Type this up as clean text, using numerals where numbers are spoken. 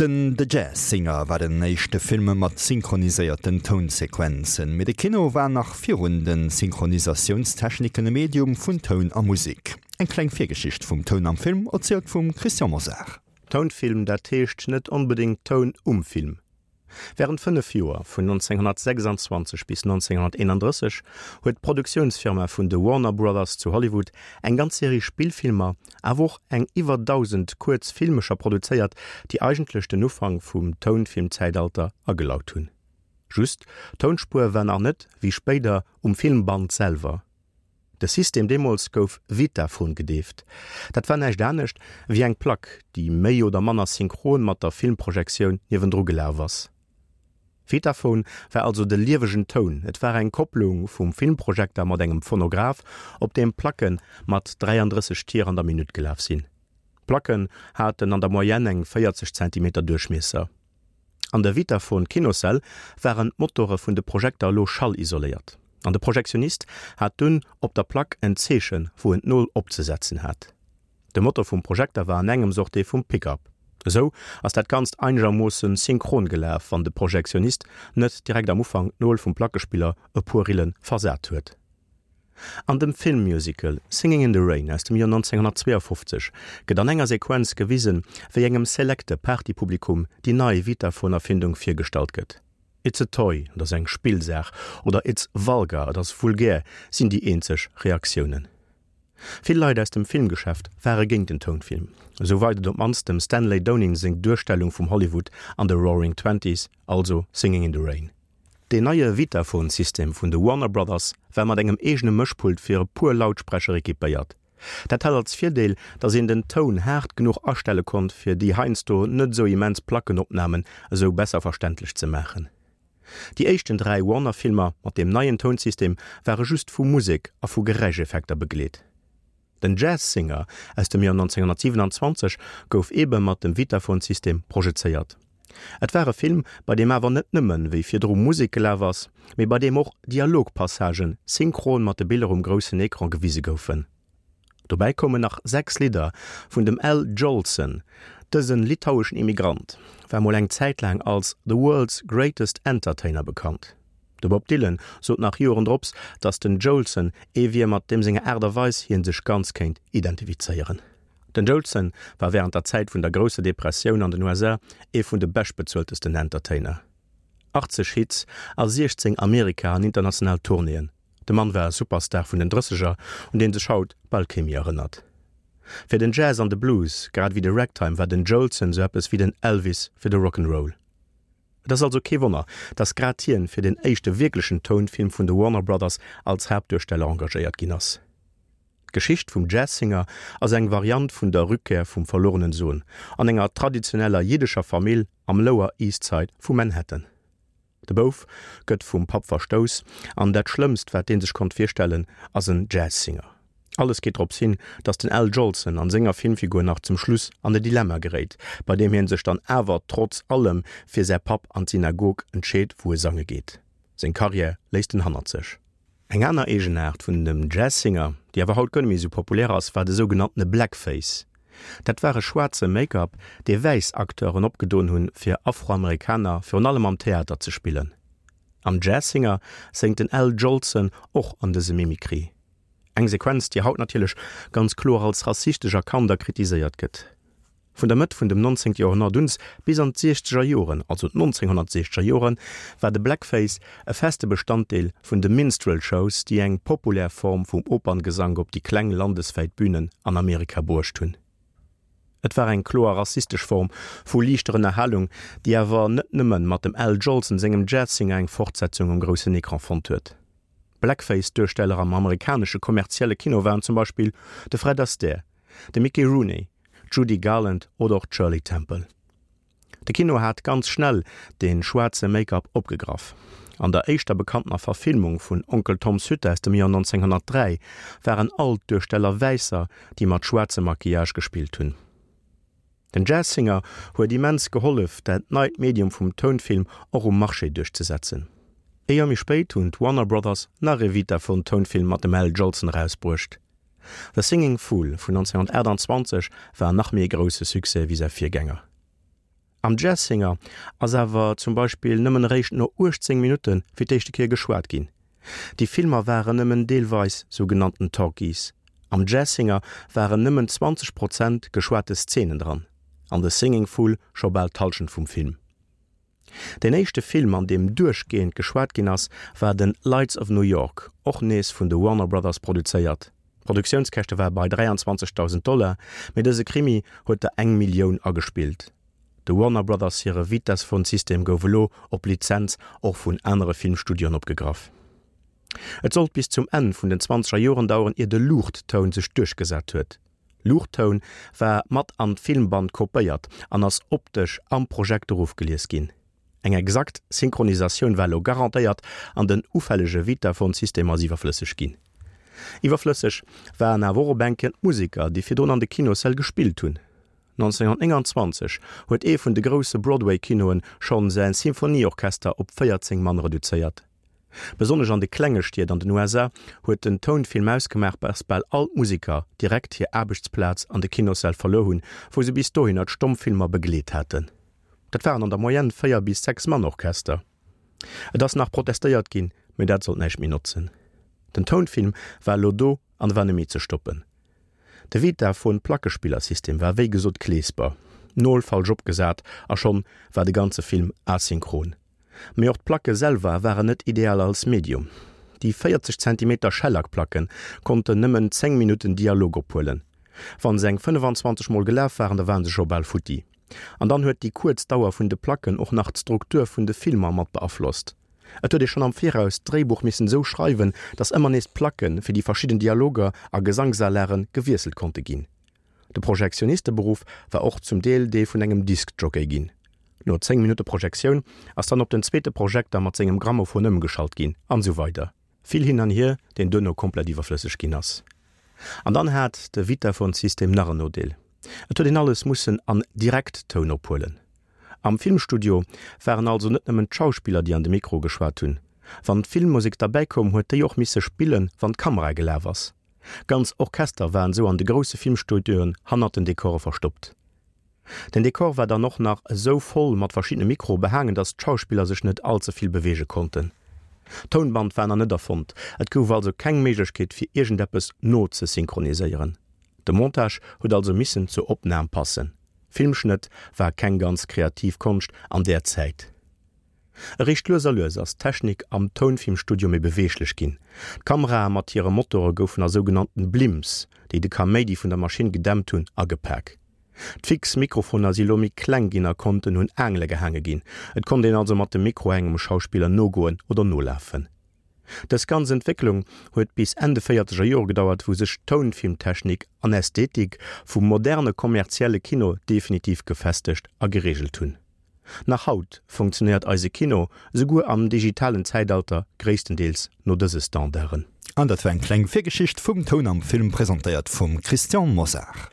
Den The Jazz Singer war den éischte Film mat synchroniséierten Tounsequenzen. Mee de Kino war nach virun de Synchronisatiounstechniken e Medium vun Toun a Musek. Eng kleng Virgeschicht vum Toun am Film, erzielt vum Christian Mosar. Tounfilm, dat heescht net onbedéngt Toun um Film. Wärend 5 Joer, vun 1926 bis 1931, huet d'Produktiounsfirma vun de Warner Brothers zu Hollywood eng ganz Serie Spillfilmer, awer och eng iwwer 1.000 kuerz Filmecher produzéiert, déi eigentlech den Ufank vum Tounfilmzäitalter agelaut hunn. Just, d'Tounspuer war nach net, wéi spéider, um Filmband selwer. De System deemools gouf Vitaphone gedeeft. Dat war näischt anescht wéi eng Plack, déi méi oder manner synchron mat der Filmprojektioun niewendru gelaf ass. Vitaphone war also de liewegen Toun, et war eng Kopplung vum Filmprojekter mat engem Phonograph, op deem Placke mat 33 Tier an der Minutt gelaf sinn. D'Placken haten an der Moyenne eng 40 Zentimeter Duerchmiesser. An der Vitaphone Kinossäll waren d'Motore vun de Projekter elo schallisoléiert, an de Projektionist hat dunn op der Plack en Zeechen, wou en d'Nol opzesetzen hat. De Motor vum Projekter war an engems och dee vum Pick-up. Esou ass dat Ganzt einegermoosse synchron gelaf, wann de Projektionist net direkt am Ufank d'Nol vum Plackespiller e puer Rille versat huet. An dem Filmmusical Singing in the Rain aus dem Joer 1952 gëtt an enger Sequenz gewisen, wéi engem selekte Partypublikum déi nei Vitaphone-Erfindung virgestallt gëtt. It's a toy, et ass eng Spillsaach, oder It's vulgar, et ass vulgär, sinn déi eenzeg Reaktiounen. Vill Leit aus dem Filmgeschäft ware géint den Tounfilm. Esou weit et op d'mannst dem Stanley Donen seng Duerstellung vum Hollywood an de Roaring Twenties, also Singing in the Rain. Deen neie Vitaphone-System vun de Warner Brothers war mat engem eegene Mëschpult fir e puer Lautsprecher equipéiert. Dat hat als Virdeel, datt een den Toun haart genuch astelle konnt, fir déi heiansdo net esou immens Plackenopnamen esou besser verständlech ze maachen. Déi éischten 3 Warner-Filmer mat deem neien Tounsystem ware just vu Musek a vu Geräischeffekter begleet. Den Jazz Singer aus dem Joer 1927 gouf eebe mat dem Vitaphone-System projezéiert. Et war e Film, bei deem awer net nëmmen, wéi virdru, Musek gelaf ass, mee bei deem och Dialogpassagen synchron mat de Biller um groussen Ecran gewise goufen. Dobäi koumen nach 6 Lidder vun dem Al Jolson. Dëse litaueschen Immigrant war mol eng Zäit laang als The World's Greatest Entertainer bekannt. De Bob Dylan sot nach Joren drops, datt den Jolson ee wier, mat deem senger Aart a Weis hie sech ganz kéint identifizéieren. Den Jolson war wärend der Zäit vun der Grousser Depressioun an den USA ee vun de beschtbezueltesten Entertainer. 80 Hits a 16 Amerika an international Tournéeën, de Mann war e Superstar vun den Drësseger, un dee sech haut bal kee méi erënnert. Fir den Jazz an de Blues, grad ewéi de Ragtime, war den Jolson sou eppes wéi den Elvis fir de Rock'n'Roll. Et ass also kee Wonner, dass grad hien fir den éischte wierklechen Tounfilm vun de Warner Brothers als Haaptduersteller engagéiert ginn ass. D'Geschicht vum Jazz Singer ass eng Variant vun der Rückkehr vum verlorenen Sohn an enger traditioneller jiddescher Famill am Lower East Side vu Manhattan. De Bouf gëtt vum Papp verstouss an dat Schlëmmst wat dee sech konnt virstellen ass en Jazz Singer. Alles geet drops hin, datt den Al Jolson an senger Filmfigur nach zum Schluss an e Dilemma geréit, bei deem hien sech dann awer trotz allem fir säi Papp an d'Synagog entscheet, wou e sange geet. Seng Karriär léisst en hannert sech. Eng aner Eegenaart vun dem Jazz Singer, déi awer haut guer net méi esou populär ass, war de sougenanntene Blackface. Dat war e schwaarze Make-up, dee wäiss Acteuren opgedoen hunn, fir Afroamerikaner virun allem am Theater ze spillen. Am Jazz Singer séngt den Al Jolson och an dëse Mimikry. Eng Sequenz, déi haut natierlech ganz kloer als rassistesch erkannt a kritiséiert gëtt. Vun der Mëtt vun dem 19. Joerhonnert uns bis an d'siechzeger Joren, also d'nonzénghonnertsiechzeger Joren, war de Blackface e feste Bestanddeel vun de Minstrel Shows, déi eng populär Form vum Operngesank op déi kleng landeswäit Bünen an Amerika bruecht hunn. Et war eng kloer rassistesch Form vu liichter Ënnerhalung, déi awer net nëmme mat dem Al Jolson sengem Jazz Singer eng Fortsetzung um groussen Ecran fonnt huet. Blackface-Duersteller am amerikanesche kommerzielle Kino waren zum Beispill de Fred Astaire, de Mickey Rooney, d'Judy Garland oder och d'Shirley Temple. De Kino hat ganz schnell de schwaarze Make-up opgegraff. An der éischter bekanntener Verfilmung vun Onkel Toms Hütte aus dem Joer 1903 waren all d'Duersteller Wäisser, déi mat schwaarzem Maquillage gespillt hunn. Den Jazz Singer huet immens gehollef, dat neit Medium vum Tounfilm och um Marché duerchzesetzen. Ee Joer méi spéit hunn d'Warner Brothers nach ee Vitaphone-Tounfilm mat dem Al Jolson erausbruecht. The Singing Fool vun 1928 war nach méi e grousse Succès wéi säi Virgänger. Am Jazz Singer ass awer zum Beispill nëmmen eréischt no 18 Minutte fir d'éischte Kéier geschwat ginn. Déi Filmer waren nëmmen deelweis sougenannten Talkies. Am Jazz Singer waren nëmmen 20 Prozent geschwate Szenen dran, an The Singing Fool scho bal d'Hallschent vum Film. Deen éischte Film an deem duerchgehend geschwat ginn ass, war den Lights of New York, och nees vun de Warner Brothers produzéiert. D'Produktiounskäschte ware bei 23.000 Dollar, mee dëse Krimi huet der eng Millioun agespillt. De Warner Brothers hire Vitaphone-System gouf elo op Lizenz och vun anere Filmstudioen opgegraff. Et sollt bis zum Enn vun den zwanzeger Joren daueren ier de Luuchttoun sech duerchgesat huet. Luuchttoun war mat an d'Filmband kopéiert an ass optesch am Projekter ofgelies ginn. Eng exakt Synchronisatioun war elo garantéiert an den ufällege Vitaphone-System ass iwwerflësseg ginn. Iwwerflësseg waren awer och op eng Kéier d'Museker, déi virdrun an de Kinossäll gespillt hunn. 1929 huet ee vun de grousse Broadway-Kinoen schonn säi Symphonieorchester op 14 Mann reduzéiert. Besonnesch an de klenge Stied an den USA huet den Tounfilm ausgemaach, dass bal all d'Museker direkt hir Aarbechtsplaz an de Kinossäll verluer hunn, wou se bis dohinner d'Stommfilmer begleet haten. Dat waren an der Moyenne 4 bis 6 Mann Orchester. Et ass nach protestéiert ginn, mee dat sollt näischt méi notzen. Den Tounfilm war elo do an war net méi ze stoppen. De Vitaphone Plackespillersystem war wéi gesot kleesper, Nol falsch opgesat a schonn war de ganze Film asynchron. Mee och d'Placke selwer waren net ideal als Medium. Déi 40 Zentimeter Schellackplacke konnten nëmmen 10 Minutten Dialog ophuelen. Wann se eng 25 mol gelaf waren, da waren se scho bal futti. An dann huet déi kuerz Dauer vun de Placken och nach d'Struktur vun de Filmer mat beaflosst. Et huet ee schonn am Viraus d'Dréibuch missen esou schreiwen, datt ëmmer nees d'Placke fir déi verschidden Dialoger a Gesangsalagen gewiesselt konnte ginn. De Projektionisteberuff war och zum Deel dee vun engem Diskjockey ginn. No 10 Minutte Projektioun ass dann op den zweete Projekter mat sengem Grammophon ëmgeschalt ginn, an esou weider. Vill hin an hier, deen duerno komplett iwwerflësseg ginn ass. An dann hat de Vitaphone-System nach en Nodeel, Et huet een alles mussen an Direkttoun ophuelen. Am Filmstudio waren also net nëmmen d'Schauspiller, déi an de Mikro geschwat hunn. Wann d'Filmmusek derbäi koum, huet déi och misse spillen, wann d'Kamera gelaf ass. Ganz Orchester waren sou an de grousse Filmstudioen hannert den Dekore verstoppt. Den Dekor war dann och nach esou voll mat verschiddene Mikroe behaangen, datt d'Schauspiller sech net all ze vill beweege konnten. D'Tounband war nach net erfonnt, et gouf also keng Méiglechkeet fir iergendeppes nozesynchroniséieren. De Montage huet also missen zur Opnam passen. Filmschnëtt war keng ganz kreativ Konscht an där Zäit. Eréischt lues a lues ass d'Technik am Tounfilmstudio méi beweeglech ginn. D'Kamerae mat hire Motore goufen a sougenannten Blimps, déi de Kaméidi vun der Maschinn gedämpt hunn, agepak. D'fix Mikrofoner si lo méi kleng ginn a konnten un Aangele gehaange ginn. Et konnt een also mat dem Mikro engem Schauspiller nogoen oder nolafen. Dës ganz Entwécklung huet bis Enn de véierzeger Jore gedauert, wou sech d'Tounfilmtechnik an Ästhetik vum moderne kommerzielle Kino definitiv gefestegt a gereegelt hunn. Nach haut funktionéiert eise Kino, esouguer am digitalen Zäitalter, gréisstendeels no dëse Standarden. An dat war eng kleng Virgeschicht vum Toun am Film, presentéiert vum Christian Mosar.